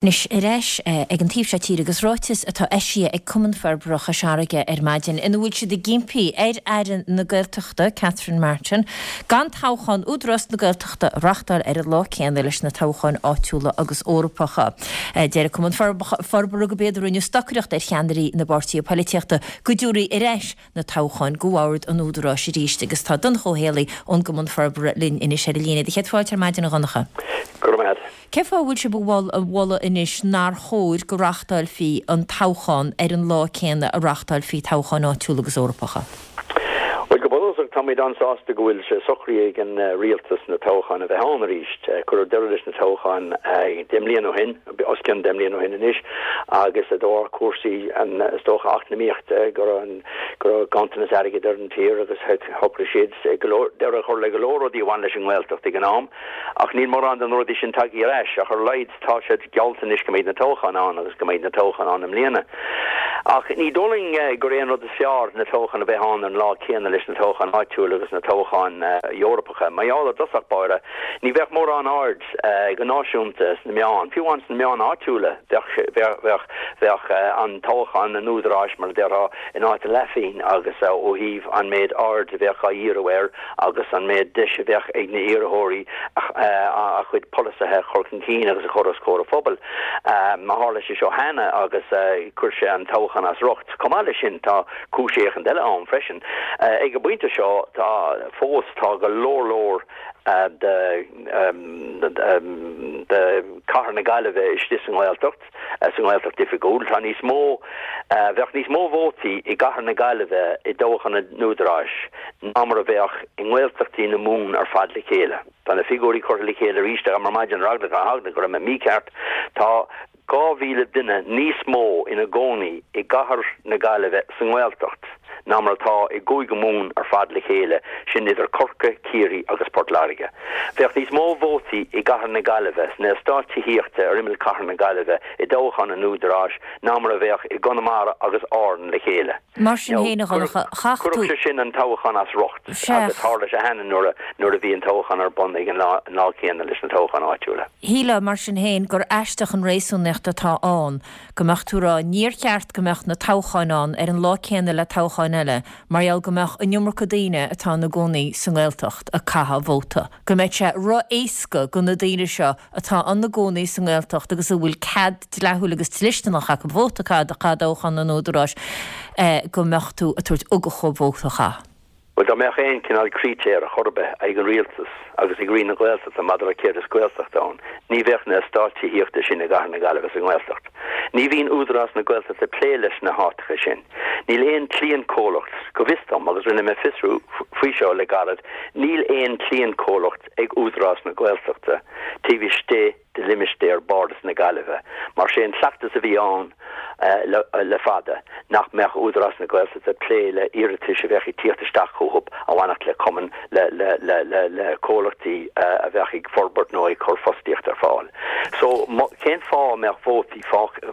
Anois ar ais ag an taobh seo tíre agus ráiteas atá eisithe ag Cumann Forbartha Chois Fharraige ar maidin ina bhfuil siad ag impí ar Aire na Gaeltachta, Catherine Martin, gan toghchán Údarás na Gaeltachta a reachtáil ar an lá céanna leis na toghcháin áitiúla agus Eorpacha. Deir an Cumann Forbartha gurb éard a rinneadh stocaireacht ar cheannairí na bpáirtithe poilitíochta go dtabharfaí ar ais na toghcháin go Bhord an Údaráis arís agus tá Donncha Ó Héalaí ón gCumann Forbartha linn anois ar an líne. Do chéad fáilte ar maidin a Dhonncha. Go raibh maith agat. Cén fáth a bhfuil sibh ag moladh anois nár chóir go reáchtáilfí an toghchán ar an lá céanna a reáchtáilfí toghcháin áitiúla agus Eorpacha? Bhuel, go bunúsach, táimid an-sásta go bhfuil sé socraithe ag an rialtas na toghcháin a bheith ann arís. Cuireadh deireadh leis na toghcháin 10 mbliana ó shin, os cionn 10 mbliana ó shin anois, agus de bharr cúrsaí, is dócha, eacnamaíochta, go raibh ganntanas airgid ar an tír agus shocraigh siad go leor, deireadh a chur le go leor rudaí a bhain leis an nGaeltacht ag an am. Ach níl mórán de na rudaí sin tagtha ar ais, ach ar a laghad tá sé geallta anois go mbeidh na toghcháin ann agus go mbeidh na toghcháin ann i mbliana. Ach ní dóigh linn gur é an rud is fearr na toghcháin a bheith ann ar an lá céanna leis na toghcháin áitiúil agus na toghcháin Eorpacha. Mar gheall i dtosach báire, ní bheadh mórán aird go náisiúnta sna meáin, fiú amháin sna meáin áitiúla, bheadh, bheadh, bheadh an toghchán an Údaráis, mar a déarfá, in áit a leathphingin agus ó thaobh an méid aird a bheadh á dhíriú air, agus an méid deis a bheadh ag na iarrthóirí a chuid polasaithe a chur chun cinn agus a chur os comhair an phobail. Mar tharla sé seo cheana agus chuir sé an toghchán as riocht. Chomh maith leis sin tá cúis éicint eile ann freisin. Ag an bpointe seo tá fós tá go leor leor de de chathair na Gaillimhe istigh sa nGaeltacht. sa nGaeltacht Oifigiúil. Tá níos mó, bheadh níos mó vótaí i gcathair na Gaillimhe i dtoghchán an Údaráis ná mar a bheadh i nGaeltachtaí na Mumhan ar fad le chéile. Tá na figiúirí curtha le chéile arís agam ar maidin ar eagla go raibh mé mícheart. Tá 2,000 duine níos mó ina gcónaí i gcathair na Gaillimhe sa nGaeltacht ná mar atá i gCúige Mumhan ar fad le chéile, sin idir Corcaigh, Ciarraí agus Port Láirge. Bheadh níos mó vótaí i gcathair na Gaillimhe, sna eastáit tithíochta ar imeall chathair na Gaillimhe i dtoghchán an Údaráis ná mar a bheadh i gConamara agus Árainn le chéile. Mar sin féin, a Dhonncha, chaith tú. Chuirfeadh sé sin an toghchán as riocht agus tharla sé cheana nuair a bhí an toghchán ar bun ag an lá céanna leis na toghcháin áitiúla. Shílfeá, mar sin féin, gur aisteach an réasúnaíocht atá ann go mbeadh tú ag rá níor cheart go mbeadh na toghcháin ann ar an lá céanna le toghcháin eile mar gheall go mbeadh an iomarca daoine atá ina gcónaí sa nGaeltacht ag caitheamh vóta, go mbeadh sé ro-éasca go na daoine seo atá ina gcónaí sa nGaeltacht agus a bhfuil cead dleathúil agus dlisteanach acu vóta a chaitheamh i dtoghchán an Údaráis go mbeadh tú ag tabhairt ugach dhóibh vóta a chaitheamh. Bhuel, dá mbeadh aon chineál critéir ar chor ar bith ag an rialtas agus ag Roinn na Gaeltachta maidir le céard is Gaeltacht ann, ní bheadh na eastáit tithíochta sin i gcathair na Gaillimhe sa nGaeltacht. Ní bhíonn Údarás na Gaeltachta ag plé leis na háiteacha sin. Níl aon cliantchomhlacht, go bhfios dom, agus rinne mé fiosrú faoi seo le gairid, níl aon cliantchomhlacht ag Údarás na Gaeltachta taobh istigh de limistéar Bhardas na Gaillimhe, mar sé an cleachtas a bhí ann le fada nach mbeadh Údarás na Gaeltachta ag plé le iarratais a bheadh ag tíocht isteach chucu a bhainfeadh le cumainn, le le le le le comhlachtaí a bheadh ag forbairt nó ag cur fostaíocht ar fáil. So cén fáth a mbeadh vótaí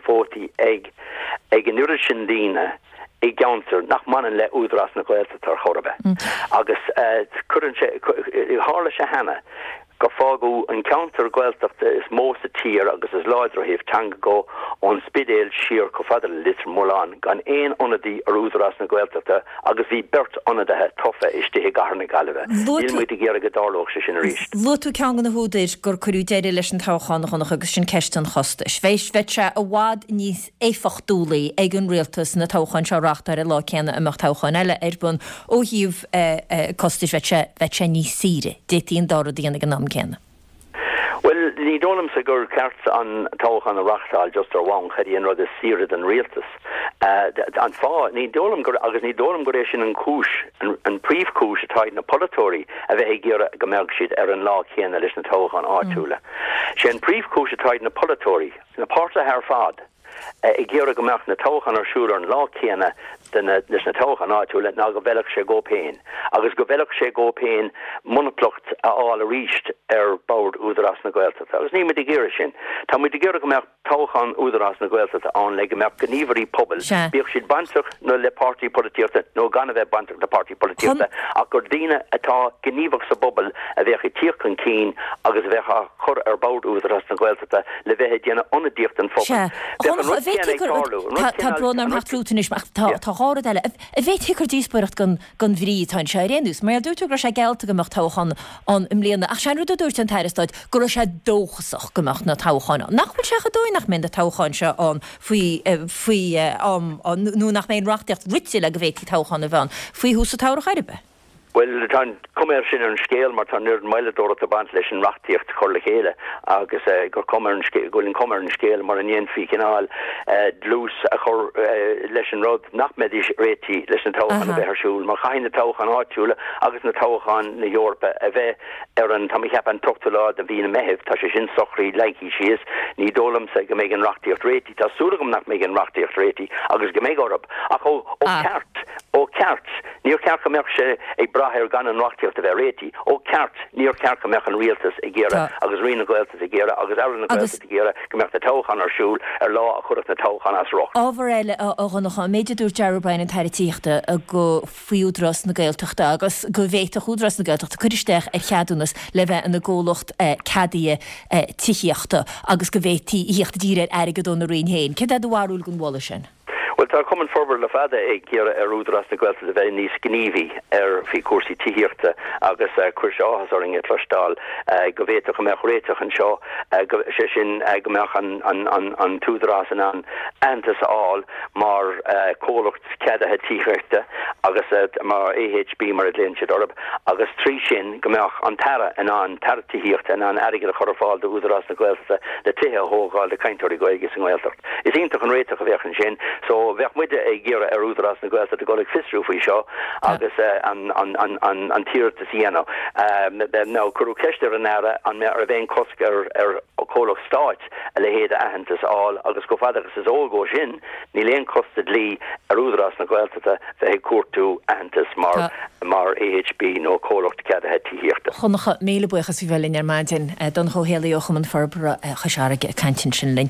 vótaí ag ag an oiread sin daoine i gceantar nach mbaineann le Údarás na Gaeltachta ar chor ar bith? Agus cuireann sé, tharla sé cheana gur fágadh an ceantar Gaeltachta is mó sa tír agus is láidre ó thaobh teanga de, ón Spidéal siar chomh fada le Leitir Mealláin, gan aon ionadaí ar Údarás na Gaeltachta agus bhí beirt ionadaithe tofa istigh i gcathair na Gaillimhe. Níl muid ag iarraidh go dtarlódh sé sin arís. Luaigh tú ceann de na húdair gur cuireadh deireadh leis an toghchán, a Dhonncha, agus sin ceist an chostais. Bheadh sé i bhfad níos éifeachtúlaí ag an rialtas na toghcháin seo a reáchtáil ar an lá céanna a mbeadh toghcháin eile ar bun. Ó thaobh costais, bheadh sé, bheadh sé níos saoire. D'fhéadfaí an dá rud a dhéanamh ag an am céanna. Bhuel, ní dóigh liomsa gur ceart an toghchán a reáchtáil just ar bhonn cad é an rud is saoire don rialtas. An fáth, ní dóigh liom gur, agus ní dóigh liom gur é sin an chúis, an príomhchúis atá ag na polaiteoirí a bheith ag iarraidh go mbeadh siad ar an lá céanna leis na toghcháin áitiúla. Sé an príomhchúis atá ag na polaiteoirí, na páirtithe ar fad ag iarraidh go mbeadh na toghcháin ar siúl ar an lá céanna. de na, leis na toghcháin áitiúla ná go bhfeilfeadh sé dhóibh féin agus go bhfeilfeadh sé dhóibh féin monaplacht a fháil arís ar bhord Údarás na Gaeltachta agus níl muid ag iarraidh sin. Tá muid ag iarraidh go mbeadh toghchán Údarás na Gaeltachta ann le go mbeadh gníomhairí pobail, bíodh siad bainteach nó le páirtí polaitíochta nó gan a bheith bainteach le páirtí polaitíochta, ach gur daoine atá gníomhach sa bpobal a bheadh ag tíocht chun cinn agus a bheadh á chur ar bhord Údarás na Gaeltachta le bheith ag déanamh ionadaíocht don phobal. Sea. Bheadh an rud céanna ag tarlú. Tá brón orm theacht fút anois, ach tá dhá rud eile. An bhféadfaí gur díospóireacht gan gan bhrí atá anseo ar aon nós. Mar dúirt tú go raibh sé geallta go mbeadh toghchán ann i mbliana, ach sé an rud a dúirt an tAire Stáit go raibh sé dóchasach go mbeadh na toghcháin ann. Nach bhfuil sé chomh dóigh nach mbeidh na toghcháin seo ann faoi faoi am nó nach mbeidh an reachtaíocht rite le go bhféadfaí toghchán a bheith ann faoi thús an tsamhraidh ar bith? Bhuel, tá an cuma air sin ar an scéal mar tá an oiread moilleadóireachta ag baint leis an reachtaíocht a chur le chéile agus gur cuma ar an scéal, go bhfuil an cuma ar an scéal mura ndéanfaí cineál dlús a chur leis an rud nach mbeidís réitithe leis na toghcháin a bheith ar siúl mar chaithfidh na toghcháin áitiúla agus na toghcháin na hEorpa a bheith ar an, tá mé ag ceapadh, an t-ochtú lá de mhí na Meithimh, tá sé sin socraithe, leagtha síos. Ní dóigh liomsa go mbeidh an reachtaíocht réitithe, tá súil agam nach mbeidh an reachtaíocht réitithe agus go mbeidh orthu, ach ó cheart, ó cheart, níor cheart go mbeadh sé ag brath ar gan an reachtaíocht a bheith réitithe. Ó cheart, níor cheart go mbeadh an rialtas ag iarraidh agus Roinn na Gaeltachta ag iarraidh agus Aire na Gaeltachta ag iarraidh go mbeadh na toghcháin ar siúl ar lá a chuirfeadh na toghcháin as riocht. Ábhar eile, a Dhonncha, an méid a dúirt Darragh O'Brien, an tAire Tithíochta, go faoi Údarás na Gaeltachta agus go bhféadfadh Údarás na Gaeltachta cur isteach ar cheadúnas le bheith ina gcomhlacht ceadaithe tithíochta agus go bhféadfaí a thíocht i dtír ar airgead óna Roinn féin. Céard é do bharúil den mholadh sin? Bhuel, tá Cumann Forbartha le fada ag iarraidh ar Údarás na Gaeltachta bheith níos gníomhaí ar faoi chúrsaí tithíochta agus chuir sé áthas orainn a chloisteáil go bhféadfadh go mbeadh réiteach anseo, sé sin go mbeadh an tÚdarás in ann aitheantas a fháil mar chomhlacht ceadaithe tithíochta agus mar AHB mar a ghlaonn siad orthu agus trí sin go mbeadh an tAire in ann, tAire Tithíochta in ann airgead a chur ar fáil d'Údarás na Gaeltachta le tithe a thógáil do chainteoirí Gaeilge sa nGaeltacht. Is iontach an réiteach a bheadh ansin. So bheadh muide ag iarraidh ar Údarás na Gaeltachta dul ag fiosrú faoi seo agus an an t-iarratas a dhéanamh. Now cuireadh ceist ar an Aire an raibh aon cosc ar ar chomhlacht stáit a leithéid de aitheantas a fháil agus chomh fada agus is eol dhó sin, Níl aon chosc sa dlí ar Údarás na Gaeltachta bheith ag cuartú aitheantas mar mar AHB nó comhlacht ceadaithe tithíochta. Dhonncha, míle buíochas as bheith linn ar maidin. Donncha Ó Héalaí ó Chumann Forbartha Chois Fharraige ag caint ansin linn.